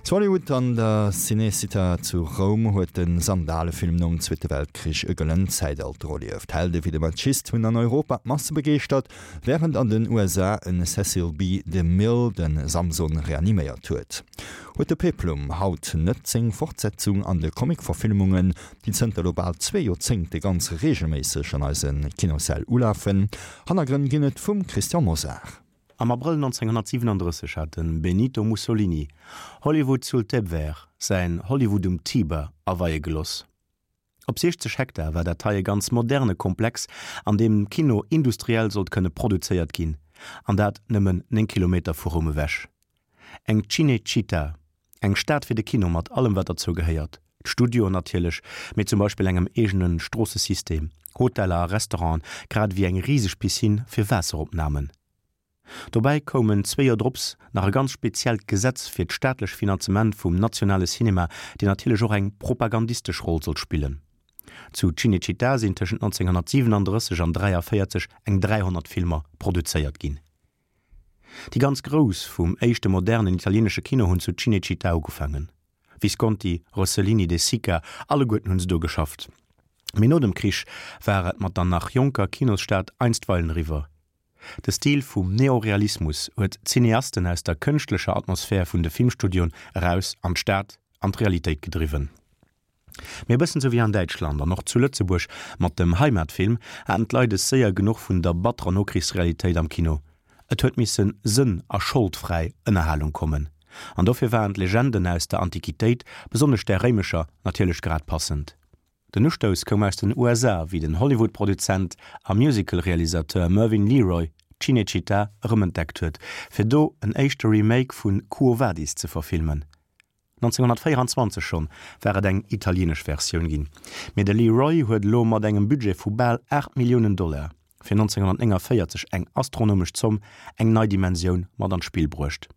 Zu Hollywood an der Cinecittà zu Roum huet de Sandalefilm nom Zweete Weltkrich e gëllent Zäitalter erlieft. Helde wéi de Maciste hunn an Europa d'Masse begeeschtert, wärend an den USA en Cecil B. DeMille de Samson reaniméiert huet. Huet de Peplum haut net seng Fortsetzung an de Comic-Verfilmungen, déi zënter elo bal zwee Joerzéngte ganz reegelméisseg an eise Kinossäll ulafen? Hannergrënn ginn et vum Christian Mosar. Am Abrëll 1937 hat de Benito Mussolini Hollywood sul Tebver, säin Hollywood um Tiber, aweie geloss. Op 60 Hektar war dat hei e ganz moderne Komplex, an deem Kino industriell sollt kënne produzéiert ginn, an dat nëmmen 9 Kilometer vu Roum ewech. Eng Cinecittà, eng Stad fir de Kino mat allem wat derzou gehéiert, d'Studioen natierlech, mee zum Beispill engem eegene Stroossesystem, Hoteller a Restauranten, grad ewéi eng riseg Piscine fir Waasseropnamen. Dobäi koumen zwee Joer drops nach e ganz speziellt Gesetz fir d'staatlech Finanzement vum nationale Cinema, deen natierlech och eng propagandistesch Roll sollt spillen. Zu Cinecittà sinn tëschent 1937 an 43 eng 300 Filmer produzéiert ginn. Déi ganz Grouss vum éischte modernen italienesche Kino hunn zu Cinecittà ugefaangen. Visconti, Rossellini, De Sica, alleguerten hunn se do geschafft. Mee no dem Krich war et mat der nach jonker Kinosstad einstweilen eriwwer. De Stil vum Neorealismus huet d'Cineasten aus der kënschtlecher Atmosphär vun de Filmstudioen eraus an d'Stad, an d'Realitéit gedriwwen. Mee e bëssen sou wéi an Däitschland an och zu Lëtzebuerg mat dem Heimatfilm haten d'Leit es séier genuch vun der batterer Nokrichsrealitéit am Kino. Et huet misse sënn a scholdfräi Ënnerhalung kommen. An dofir waren d'Legenden aus der Antiquitéit, besonnesch där réimescher, natierlech grad passend. Den Ustouss koum aus den USA, wéi den Hollywood-Produzent a Musical-Realisateur Mervyn LeRoy Cinecittà erëmentdeckt huet, fir do en éischte Remake vu Quo Vadis ze verfilmen. 1924 schonn war et eng italieenesch Versioun ginn, mee de LeRoy huet elo mat engem Budget vu bal 8 Milliounen Dollar, fir 1949 eng astronomesch Zomm, eng nei Dimensioun mat an d'Spill bruecht.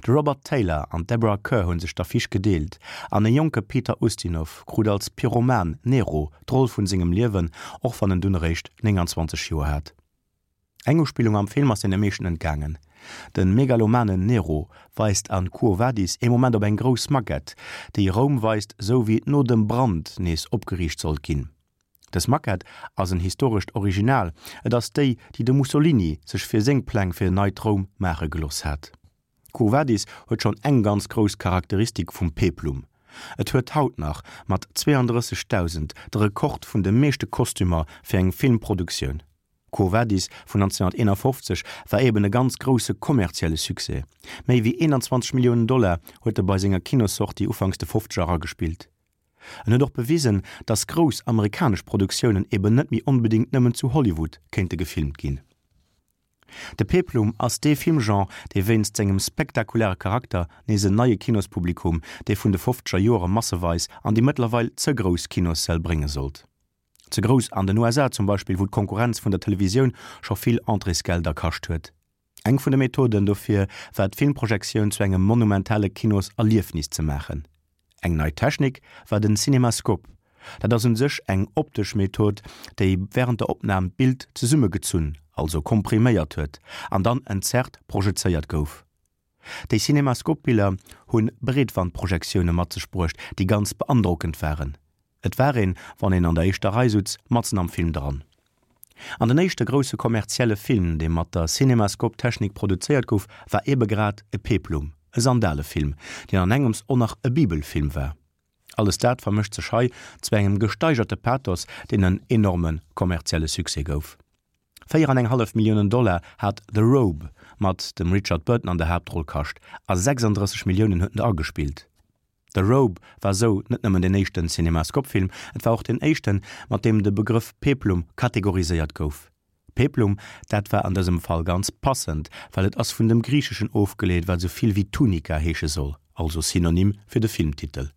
De Robert Taylor an d'Deborah Kerr hu sech d'Affiche gedeelt an e jonke Peter Ustinov krut als Pyroman Nero d'Roll vun sengem Liewen, och wann en dunn eréischt 29 Joer hat. Eng Uspillung am Film ass deene meeschten entgaangen. De megalomanen Nero weist an Quo Vadis ee Moment op eng grouss Maquette, déi Roum weist, sou wéi et no dem Brand nees opgeriicht sollt ginn. Dës Maquette ass en historescht Original, et ass déi, déi de Mussolini sech fir seng Pläng fir en neit Roum maache gelooss hat. Quo Vadis huet schonn eng ganz grouss Charakteristik vum Peplum, Et huet haut nach mat 32.000 de Rekord vun de meeschte Kostümer fir eng Filmproduktioun. Quo Vadis vun 1951 war eben e ganz grousse kommerzielle Succès. Méi wéi 21 Milliounen Dollar huet e bei senger Kinossortie ufanks de Fofzeger eragespillt. En huet och bewisen, datt grouss amerikanesch Produktiounen eben net méi onbedéngt nëmmen zu Hollywood kéinte gefilmt ginn. De Peplum ass dee Filmgenre, dee wéinst sengem spektakuläre Charakter nees en neie Kinospublikum, dee vun de fofzeger Joere masseweis an déi mëttlerweil ze grouss Kinossäll brénge sollt. Ze grouss an den USA zum Beispill, wou d'Konkurrenz vun der Televisioun scho vill Entréesgelder kascht huet. Eng vun de Methoden dofir war d'Filmprojektioun zu engem monumentale Kinoserliefnis ze maachen. Eng nei Technik war den Cinemascope. Dat ass un sech eng optesch Method, déi wärend der Opnam d'Bild zesummegezunn, also kompriméiert huet an dann entzerrt projezéiert gouf. Déi Cinemascope-Biller hu Breetwandprojektioune mat sech bruecht, déi ganz beandrockend waren. Et war een, wann een an der éischter Rei sutz, matzen am Film dran. An den éischte grousse kommerzielle Film, dee mat der Cinemascope-Technik produzéiert gouf, war ebe grad e Peplum, e Sandalefilm, deen an engems och nach e Bibelfilm war. Alles dat vermëscht sech hei zu engem gesteigerte Pathos, deen en enorme kommerzielle Succès gouf. Véier an eng hallef Milliounen Dollar hat The Robe mat dem Richard Burton an der Haaptroll kascht a 36 Milliounen huet en der agespillt. The Robe war sou net nëmmen deen éischten Cinemascope-Film, et war och deen éischten, mat deem de Begrëff Peplum kategoriséiert gouf. Peplum, dat war an dësem Fall ganz passend, well et ass vun dem Griicheschen ofgeleet, wat sou vill wéi Tunika heesche soll, also Synonym fir de Filmtitel.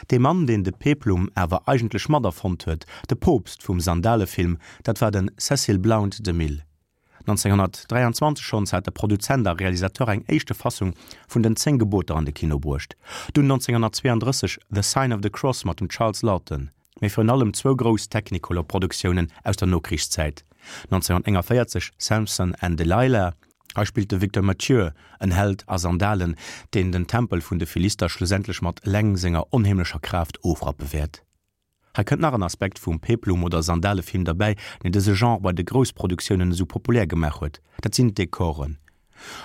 Dee Mann, deen de Peplum awer eigentlech mat erfonnt huet, de Poopst vum Sandalefilm, dat war de Cecil Blount DeMille. 1923 schonns hat de Produzent a Realisateur eng éischte Fassung vun den 10 Geboter an de Kino bruecht, dunn 1932 The Sign of the Cross mat dem Charles Laughton, mee virun allem zwou grouss Technicolor-Produktiounen aus der Nokrichszäit, 1941 Samson and Delilah. Hei spillt de Victor Mature en Held a Sandalen, deen den Tempel vun de Philister schlussendlech mat eleng senger onheemlecher Kraaft ofrappe wäert. Hei kënnt nach en Aspekt vum Peplum oder Sandalefilm derbäi, deen dëse Genre bei de Groussproduktiounen esou populär gemaach huet, dat sinn d'Dekoren.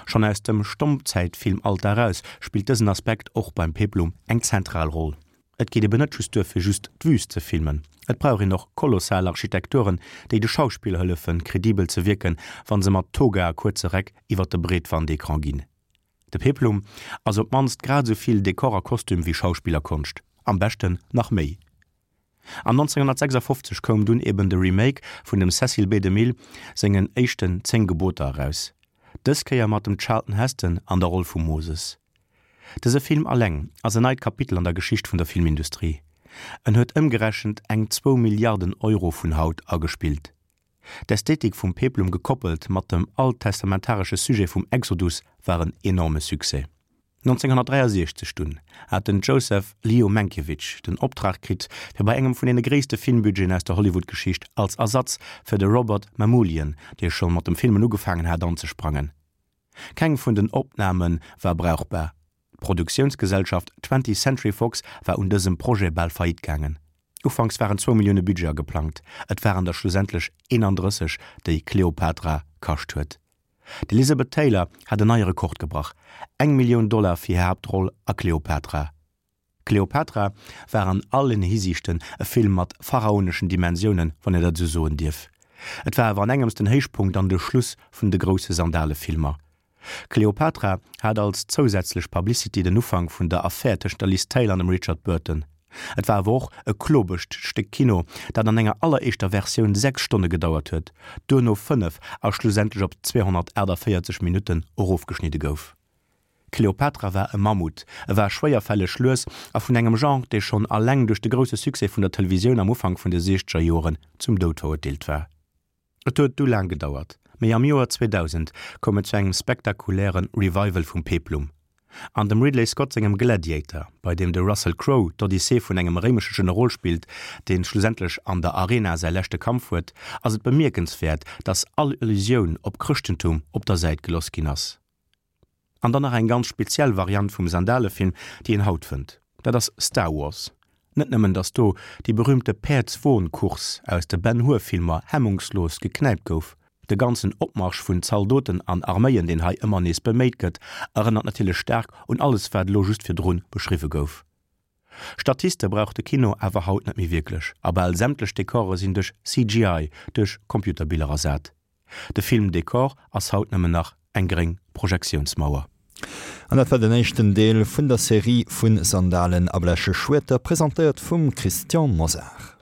Schonn aus dem Stommzäitfilmalter eraus spillt dësen Aspekt och beim Peplum eng zentral Roll. Et geet eben net just duer fir just d'Wüst ze filmen, et brauch een och kolossal Architekturen, déi de Schauspiller hëllefen kredibel ze wierken, wann se mat Toga a kuerze Räck iwwer de Breetwandecran ginn. De Peplum ass op d'mannst grad esou vill Dekor a Kostüm wéi Schauspillerkonscht, am beschten nach méi. An 1956 koum dunn eben de Remake vun dem Cecil B. DeMille sengen éischten 10 Geboter eraus, dës Kéier mat dem Charlton Heston an der Roll vum Moses. Dëse Film alleng ass en neit Kapitel an der Geschicht vun der Filmindustrie. En huet ëmgerechent eng zwou Milliarden Euro vun haut agespillt. D'Ästhetik vum Peplum gekoppelt mat dem alttestamentaresche Sujet vum Exodus war en enorme Succès. 1963 dunn hat den Joseph Leo Mankiewicz den Optrag kritt, fir bei engem vun deene gréisste Filmbudgeten aus der Hollywood-Geschicht als Ersatz fir de Robert Mamoulian, dee scho mat dem Filmen ugefaangen hat, anzesprangen. Keng vun den Opname war brauchbar. D'Produktiounsgesellschaft Twentieth Century Fox war un dësem Projet bal faillite gaangen. Ufanks waren zwou Millioune Budget ageplangt, et waren der schlussendlech 31, déi Cleopatra kascht huet. D'Elizabeth Taylor hat en neie Rekord gebrach, eng Millioun Dollar fir hir Haaptroll a Cleopatra. Cleopatra war an allen Hisiichten e Film mat pharaoneschen Dimensiounen, wann een dat esou soen dierf. Et war awer an engems den Héichpunkt an de Schluss vun de grousse Sandalefilmer. Cleopatra hat als zousätzlech Publicity den Ufank vun der Affär tëschent der Liz Taylor an dem Richard Burton. Et war awer och e klobescht Stéck Kino, dat an enger alleréischter Versioun 6 Stonne gedauert huet, duerno 5 a schlussendlech op 248 Minutten erofgeschnidde gouf. Cleopatra war e Mammut, e war schwéierfälleg, lues a vun engem Genre, dee schonn alleng duerch de grousse Succès vun der Televisioun am Ufank vun de siechzeger Joren zum Doud verurteelt war. Et huet du laang gedauert, mee am Joer 2000 koum et zu engem spektakuläre Revival vum Peplum. An dem Ridley Scott sengem Gladiator, bei deem de Russell Crowe d'Odyssee vun engem réimesche Generol spillt, dee schlussendlech an der Arena säi leschte Kampf huet, ass et bemierkenswäert, datt all Allusioun op Chrëschtentum op der Säit geloss ginn ass. An dann nach eng ganz speziell Variant vum Sandalefilm, déi een haut fënnt, dat ass Star Wars. Net nëmmen datt do déi berühmte Päerdswon-Course aus de Ben Hur Filmer hemmungslos geknäipt gouf, de ganzen Opmarsch vun Zaldoten an Arméien, deen hei ëmmer nees beméit gëtt, erënnert natierlech staark un alles wat elo just virdrun beschriwwe gouf. Statiste brauch de Kino awer haut net méi wierklech a bal sämtlech Dekore sinn duerch CGI, duerch Computerbiller ersat. De Filmdekor ass haut nëmmen nach eng gréng Projektiounsmauer. An dat war den éischten Deel vun der Serie vu Sandalen a bleche Schwierter, presentéiert vum Christian Mosar.